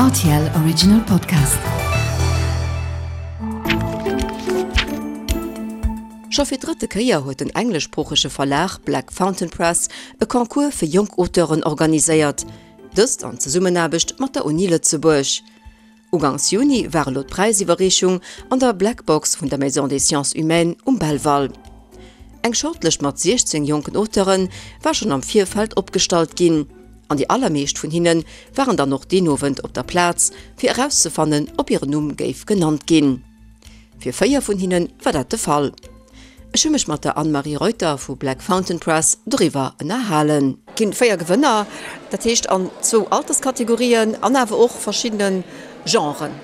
Rtl Original Podcast. Scho fir d'drëtte Kéier huet den engleschsproochege Verlag Black Fountain Press e Concours fir jonk Auteuren organiséiert, dëst an Zesummenaarbecht mat der Uni Lëtzebuerg. Ugangs Juni war elo d'Präisiwwerreechung an der Black Box vun der Maison des Sciences Humaines um Belval. Eng Shortlëscht mat 16 jonken Auteure war schonn am Virfeld opgestallt ginn, an déi allermeescht vun hinne waren dann och deen Owend op der Plaz, fir erauszefannen, ob hiren Numm géif genannt ginn. Fir 4 vun hinne war dat de Fall. Ech hu mech mat der Anne-Marie Reuter vu Black Fountain Press doriwwer ënnerhalen. Ginn 4 Gewënner, dat heescht an zwou Alterskategorien an awer och verschiddene Genren.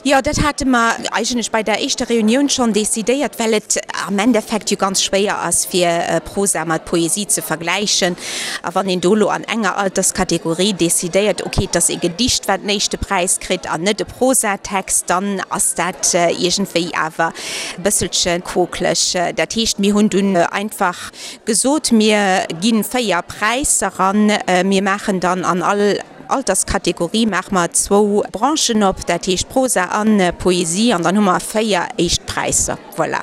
Jo, dat hate mer eigentlech bei der éischter Reunioun schonn decidéiert, well et am Endeffekt jo ganz schwéier ass, fir Prosa mat Poesie ze vergläichen. A wann een do elo an enger Alterskategorie decidéiert, okay, et ass e Gedicht, wat den éischte Präis kritt an net e Prosatext, dann ass dat iergendwéi awer e bësselche quokeleg. Dat heescht, mir hunn dunn einfach gesot, mir gi 4 Präisser an mir maachen dann an all Alterskategorie maache mer zwou Branchen op, dat heescht Prosa a Poesie, an dann hu mer 4 éischt Präisser, voilà,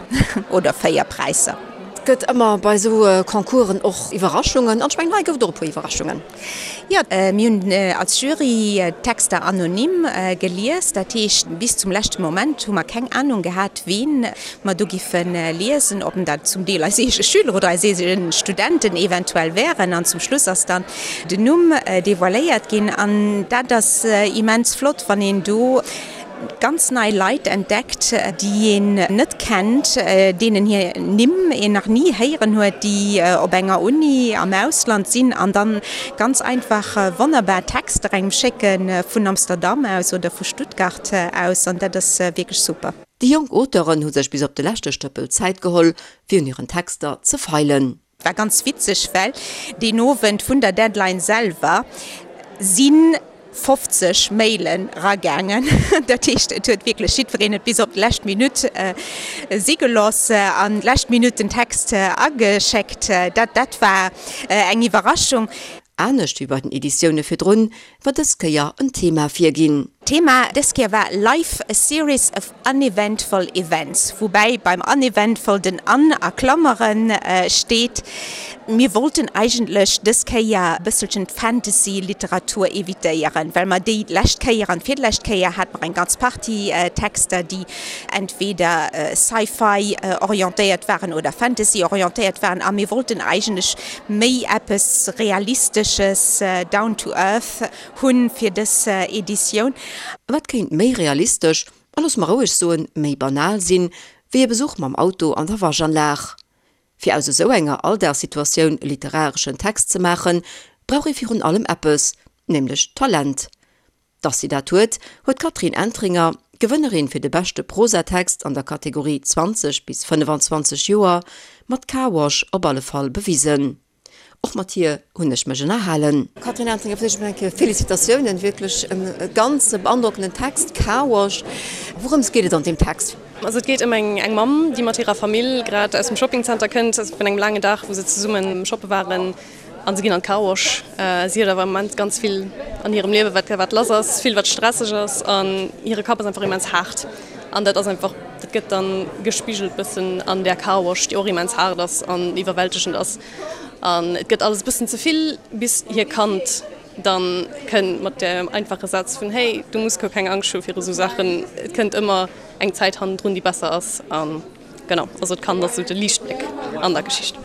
oder 4 Präisser. Et gëtt ëmmer bei esou Concoursen och Iwwerraschungen, an ech mengen hei gouf et och e puer Iwwerraschungen. Jo, mir hunn als Jury d'Texter anonym gelies. Dat heescht, bis zum leschte Moment hu mer keng Anung gehat, ween mer do giffe liesen, ob dat zum Deel eis eege Schüler oder eis eege Studenten eventuell wären. An zum Schluss ass dann den Numm devoiléiert ginn. An dat ass immens flott, wann een do ganz nei Leit entdeckt, déi een net kennt, deenen hir Nimm een nach ni héieren huet, déi op enger Uni am Ausland sinn an dann ganz einfach wonnerbar Texter engem schécke vun Amsterdam aus oder vu Stuttgart aus an dat ass wierklech super. Déi jonk Auteuren hu sech bis op de leschte Stëppel Zäit geholl, fir un hiren Texter ze feilen. War ganz witzeg, well deen Owend vun der Deadline selwer si 50 Mailen ragaangen. Dat heescht, et huet wierklech jiddwereen et bis op d'lescht Minutt si gelooss an d'lescht Minutt den Text ageschéckt. Dat dat war eng Iwwerraschung. Anescht wéi bei den Editioune virdrun, war dës Kéier en Thema virginn. D'Thema dës Kéier war Life, a series of uneventful events, woubäi beim uneventful den un a Klammere steet. Mir wollten eigentlech dës Kéier e bësselchen d'Fantasy-Literatur evitéieren, well mer déi lescht Kéier an d'virlescht Kéier hate mer eng ganz Partie Texter, déi entweder Sci-Fi orientéiert waren oder Fantasy orientéiert waren a mir wollten eigentlech méi eppes Realistesches, down to earth hunn fir dës Editioun. Wat kéint méi realistesch, a looss mer roueg soen, méi banal sinn, wéi e Besuch mam Auto an der Waschanlag? Fir aus esou enger Alldagssituatioun e literareschen Text ze maachen, brauch ee virun allem eppes, nämlech Talent. Dass si dat huet, huet d'Catherine Entringer, Gewënnerin fir de beschte Prosatext an der Kategorie 20 bis 25 Joer, mat Car Wash op alle Fall bewisen. Och mat hir hunn ech mech ënnerhalen. Catherine Entringer, fir d'éischt emol eng Kéier Félicitatiounen, wierklech e ganz beandrockenden Text, Car Wash. Wourëms geet et an deem Text? Also et geet ëm eng Mamm, déi mat hirer Famill grad aus dem Shoppingzenter kënnt, vun engem laangen Dag, wou se zesumme shoppe waren. An se ginn an d'Car Wash. Si huet awer am Moment ganz vill an hirem Liewe wat wat lass ass, vill wat stresseg ass an hire Kapp ass einfach immens haart. An dat ass einfach, dat gëtt dann gespigelt bëssen an där Car Wash, déi och immens haart ass an iwwerwältegend ass. An et gëtt alles e bëssen ze vill, bis hir Kand dann kënnt mat dem einfache Saz vun, Hey, du muss guer keng Angscht hu viru sou Saachen, et kënnt ëmmer eng Zäit hannendrun, déi besser ass. An Genau, also d'Kand ass sou de Liichtbléck an der Geschicht.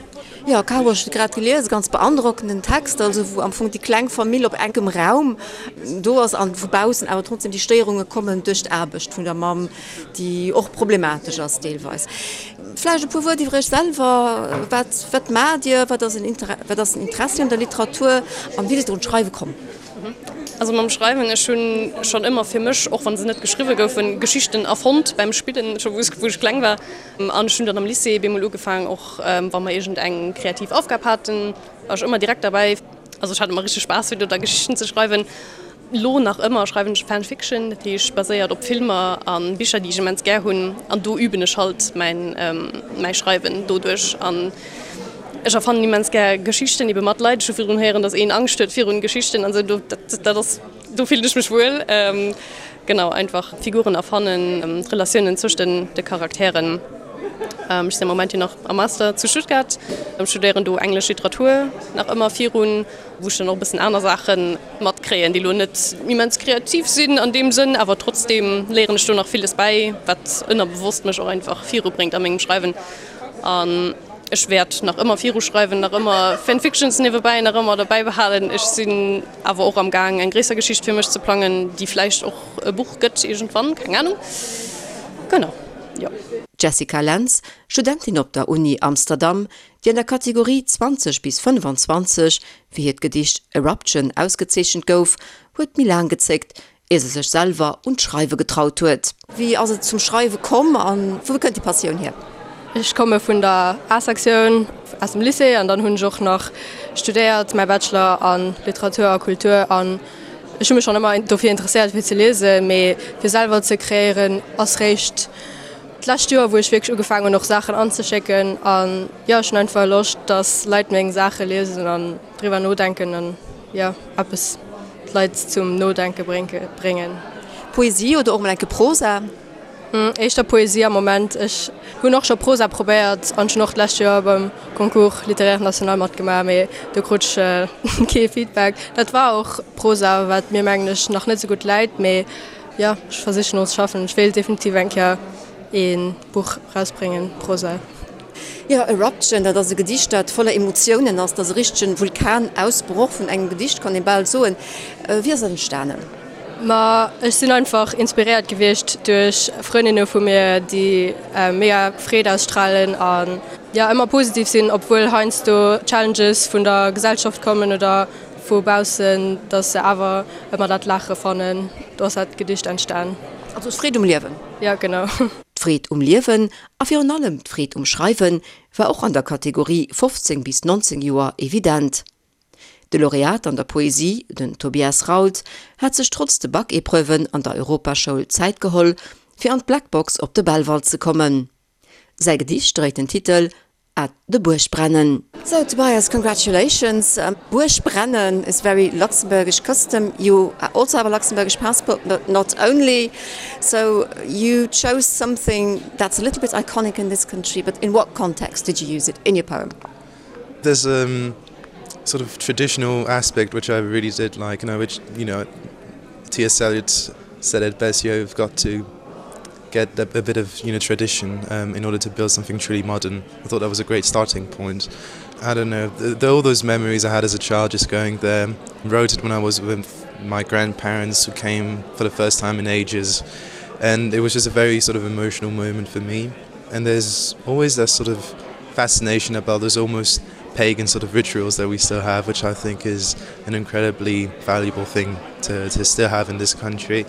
Jo, Caro, ech hu grad gelies, e ganz beandrockenden Text, also wou am Fong déi kleng Famill op enkem Raum do ass an vu baussen awer trotzdem déi Stéierunge kommen duerch d'Aarbecht vun der Mamm, déi och problematesch ass deelweis. Vläicht e puer Wuert iwwer Iech selwer, Wat, wat maacht Dir, wat ass en Inter, wat ass den Interessi un der Literatur an wéi sidd Der un d'Schreiwe komm? Also mam Schreiwen, ech hunn schonn ëmmer fir mech, och wann se net geschriwwe goufen, Geschichten erfonnt beim Spillen, scho wou ech kleng war. An ech hunn dann am Lycée bemol ugefaang, och wa mer iergend eng kreativ Aufgab haten, war ech ëmmer direkt derbäi. Also ech hat ëmmer richteg Spaass fir do da Geschichten ze schreiwen. Lo nach ëmmer schreiwen ech Fanfiction, dat heescht baséiert op Filmer a Bicher déi ech immens gär hunn. An do üben ech halt mäin mäi Schreiwen doduerch. An Ech erfannen immens gär Geschichten ebe mat Leit. Ech hu virdrun héieren, datt een Angscht huet virun Geschichten an esou. Do, dat, dat ass. do fillen ech mech wuel. Genau, einfach Figuren erfannen, d'Relatiounen zwëscht den de Charakteren. Ech sinn am Moment jo nach am Master zu Stuttgart, studéieren do englesch Literatur nach ëmmer virun, wou ech dann och e bëssen aner Saache matkréien, déi elo net immens kreativ sinn an deem Sënn, awer trotzdeem léieren ech do nach villes bäi, wat ënnerbewosst mech och einfach virubréngt a mengem Schreiwen. An ech wäert nach ëmmer viruschreiwen, nach ëmmer Fanfictions niewebäi nach ëmmer derbäi behalen. Ech sinn awer och am Gaang eng gréisser Geschicht fir mech ze plangen, déi vläicht och e Buch gëtt iergendwann, keng Anung. Genau, jo. D'Jessica Lentz, Studentin op der Uni Amsterdam, déi an der Kategorie 20 bis 25 fir hiert Gedicht Eruption ausgezeechent gouf, huet méi laang gezéckt, ier se sech selwer un d'Schreiwe getraut huet. Wéi ass et zum Schreiwe komm a wou kënnt déi Passioun hier? Ech komme vun der A-Sektioun aus dem Lycée an dann hunn ech och nach studéiert, mäi Bachelor a Literatur a Kultur. An ech hu mech schonn ëmmer dofir interesséiert fir ze liesen, mee fir selwer ze kreéieren ass réischt d'lescht Joer, wou ech wierklech ugefaangen hunn och Saachen anzeschécken. An jo, ech hunn einfach Loscht, dass Leit meng Saache liesen an driwwer nodenken an jo eppes d'Leit zum Nodenke bréngen. Poesie oder och mol enke Prosa? Éischter Poesie am Moment. Ech hunn och scho Prosa probéiert an ech hunn och d'lescht Joer beim Concours littéraire national matgemaach, mee do krut ech kee Feedback. Dat war och Prosa, wat mir mengen ech nach net esou gutt läit, mee jo, ech versichen och ze schaffen. Ech wéilt definitiv eng Kéier ee Buch rausbréngen, Prosa. Jo, Eruption, dat ass e Gedicht, dat voller Emotiounen ass. Dat ass e richtegen Vulkanausbroch vun engem Gedicht, kann ee bal soen. Wéi ass dat entstanen? Ma ech sinn einfach inspiréiert gewiescht duerch Frëndinne vu mir, déi mega Freed ausstralen an jo ëmmer positiv sinn, obwuel heiansdo Challenges vun der Gesellschaft kommen oder vu baussen, dass se awer ëmmer dat Laache fannen. Do ass dat Gedicht entstan. Also d'Freed um Liewen? Jo, genau. D'Freed um Liewen A virun allem d'Freed um Schreiwe war och an der Kategorie 15 bis 19 Joer evident. De Laureat an der Poesie, den Tobias Rault, hat sech trotz de Bac-Epreuven an der Europaschoul Zäit geholl, fir an d'Blackbox op de Belval ze kommen. Säi Gedicht dréit den Titel At de Buergbrennen. So Tobias, congratulations. Buergbrennen is very Luxembourgish custom. You also have a Luxembourgish passport, but not only. So you chose something that's a little bit iconic in this country, but in what context did you use it in your poem? There's a sort of traditional aspect which I really did like, you know, which you know T.S. Eliot said at best you've got to get a, a bit of you know tradition um, in order to build something truly modern. I thought that was a great starting point. I don't know the, the, all those memories I had as a child just going there wrote it when I was with my grandparents who came for the first time in ages and it was just a very sort of emotional moment for me and there's always that sort of fascination about those almost pagan sort of rituals that we still have which I think is an incredibly valuable thing to, to still have in this country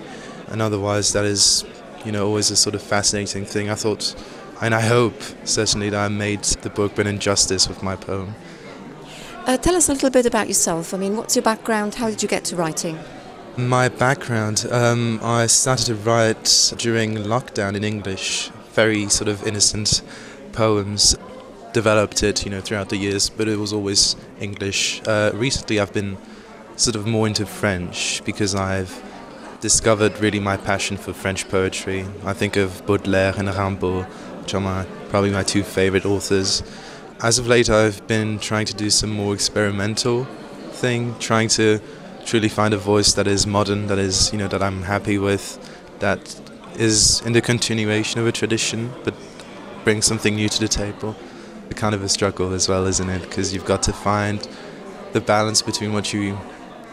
and otherwise that is you know always a sort of fascinating thing I thought and I hope certainly that I made the book been injustice with my poem. Uh, tell us a little bit about yourself. I mean, what's your background? How did you get to writing? My background um, I started to write during lockdown in English, very sort of innocent poems developed it you know throughout the years but it was always English uh, recently I've been sort of more into French because I've discovered really my passion for French poetry I think of Baudelaire and Rimbaud which are my probably my two favorite authors as of late I've been trying to do some more experimental thing trying to truly find a voice that is modern that is you know that I'm happy with that is in the continuation of a tradition but bring something new to the table a kind of a struggle as well isn't it because you've got to find the balance between what you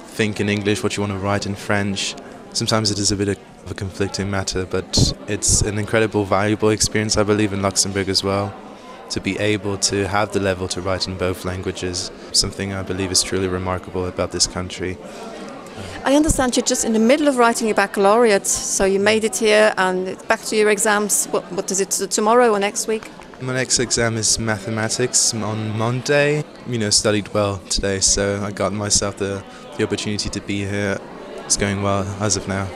think in English what you want to write in French sometimes it is a bit of a conflicting matter but it's an incredible valuable experience I believe in Luxembourg as well to be able to have the level to write in both languages something I believe is truly remarkable about this country I understand you're just in the middle of writing your baccalaureate so you made it here and back to your exams what, what is it tomorrow or next week My next exam is mathematics on Monday you know studied well today so I got myself the the opportunity to be here it's going well as of now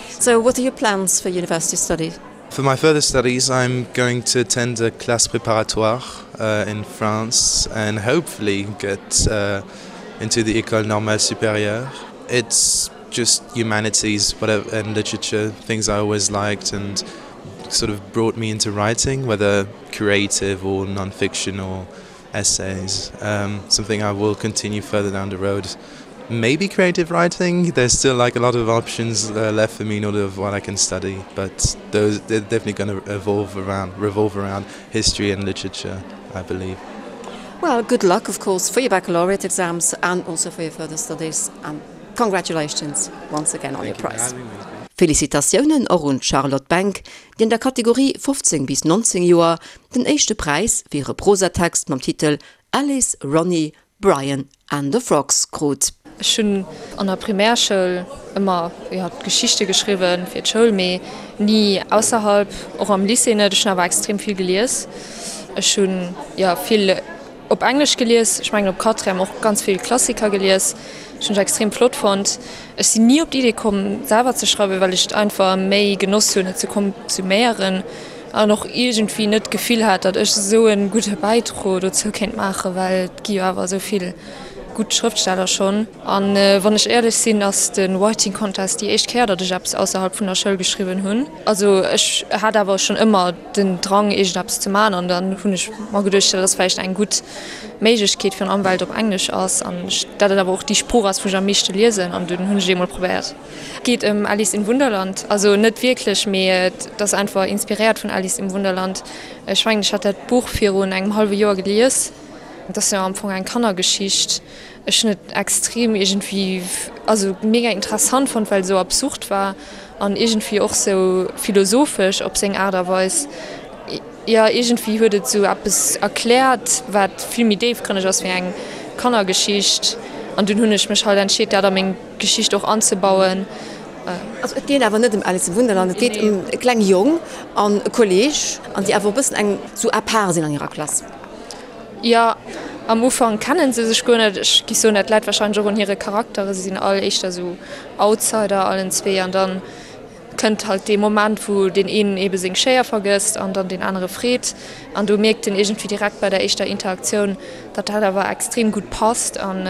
so what are your plans for university studies For my further studies I'm going to attend a classe préparatoire uh, in France and hopefully get uh, into the École Normale Supérieure. It's Just humanities whatever and literature things I always liked and sort of brought me into writing, whether creative or non-fiction or essays um, something I will continue further down the road maybe creative writing there's still like a lot of options uh, left for me in order of what I can study but those they're definitely going to evolve around revolve around history and literature I believe. Well good luck of course for your baccalaureate exams and also for your further studies and congratulations once again on your prize. Félicitatiounen och un d'Charlotte Benck, déi an der Kategorie 15 bis 19 Joer den éischte Präis fir hire Prosatext mam Titel Alice, Ronnie, Brian and the Frogs krut. Ech hunn an der Primärschoul ëmmer, jo, Geschichte geschriwwen fir d'Schoul, mee ni ausserhalb, och am Lycée net. Ech hunn awer extrem vill gelies. Ech hunn, jo, vill op Englesch gelies, ech mengen op Quatrième och ganz vill Klassiker gelies. Ech hunn ech extrem flott fonnt. Ech sinn ni op d'Idee komm selwer ze schreiwen, well ech et einfach méi genoss hunn et ze konsuméieren an och iergendwéi net d'Gefill hat, datt ech esou e gudde Bäidro dozou kéint maachen, well et gi jo awer esou vill gutt Schrëftsteller schonn. An wann ech éierlech sinn, ass de Writing Contest déi éischt Kéier, datt ech eppes ausserhalb vun der Schoul geschriwwen hunn. Also ech hat awer schonn ëmmer den Drang iergendeppes ze man an dann hunn ech mer geduecht, dat ass vläicht eng gutt Méiglechkeet, virun allem well et op Englesch ass an ech dat et awer och déi Sprooch ass wou ech am meeschte liesen an dunn hunn ech et eemol probéiert. Et geet ëm Alice im Wunderland, also net wierklech, mee et ass einfach inspiréiert vun Alice im Wunderland. Ech mengen ech hat dat Buch virun engem hallwe Joer gelies, et ass jo am Fong eng Kannergeschicht. Ech hunn et extrem iergendwéi, also mega interessant fonnt, well et esou absurd war an iergendwéi och sou philosophesch op seng Aart a Weis. Jo, iergendwéi huet et sou eppes erkläert, wat vill méi déifgrënneg ass wéi eng Kannergeschicht. An dunn hunn ech mech halt entscheet, dat a meng Geschicht och anzebauen. Also et geet awer net ëm Alice im Wunderland, et geet ëm e kleng Jong an e Kolleeg, an déi awer e bëssen eng sou à part sinn an hirer Klass. Jo, am Ufank kennen se sech guer net. Ech giff soen, dat läit wahrscheinlech och un hire Charakteren. Se sinn all éischter sou Outsider allen zwee an dann kënnt halt dee Moment, wou deen een ebe seng Schéier vergësst an dann deen anere freet. An do mierkt en iergendwéi direkt bei der éischter Interaktioun, datt dat awer extrem gutt passt an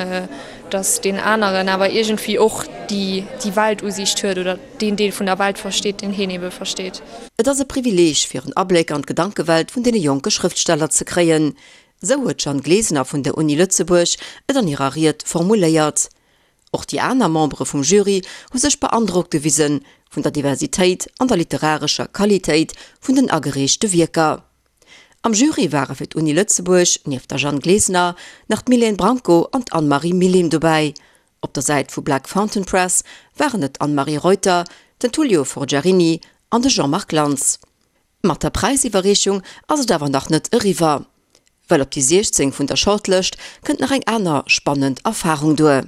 datt deen aneren awer iergendwéi och déi déi Weltusiicht huet oder deen Deel vun der Welt versteet, deen heen ebe versteet. Et ass e Privileeg, fir en Abléck an d'Gedankewelt vun deene jonke Schrëftsteller ze kréien. Sou huet d'Jeanne Glesener vun der Uni Lëtzebuerg et an hirer Ried formuléiert. Och déi aner Membere vum Jury hu sech beandrockt gewise vun der Diversitéit an der literarescher Qualitéit vun den agereechte Wierker. Am Jury ware fir d'Uni Lëtzebuerg nieft der Jeanne Glesener nach d'Mylène Branco an d'Anne-Marie Millim dobäi. Op der Säit vu Black Fountain Press waren et d'Anne-Marie Reuter, den Tullio Forgiarini an de Jean-Marc Lantz. Mat der Präisiwwerreechung ass et awer nach net eriwwer, well op déi 16 vun der Shortlëscht kënnt nach eng aner spannend Erfarung duer.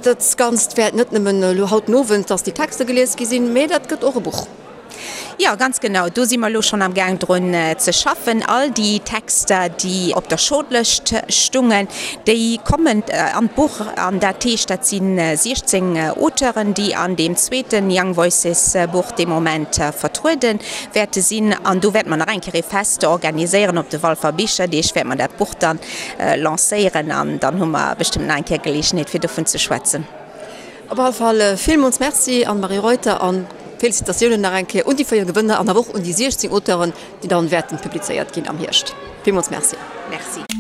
Dat Ganzt wäert net nëmmen elo haut den Owend, dass déi Texter gelies gi sinn, mee dat gëtt och e Buch. Jo, ganz genau. Do si mer elo schonn am Gaang drun ze schaffen. All déi Texter, déi op der Shortlëscht stungen, déi kommen an d'Buch. An dat heescht, dat si 16 Auteuren, déi an deem zweete Young Voices Buch dee Moment vertruede wäerte sinn. An do wäerte mer nach eng Kéier ee Fest organiséieren. Op de Walfer Bicherdeeg wäerte mer dat Buch dann lancéieren an dann hu mer bestëmmt nach eng Kéier Geleegenheet, fir dovun ze schwätzen. Op alle Fall villmools Merci Anne-Marie Reuter an Félicitatiounen nach eng Kéier un déi 4 Gewënner an awer och un déi 16 Auteuren, déi dann wäerten publizéiert ginn am Hierscht. Villmools Merci. Merci.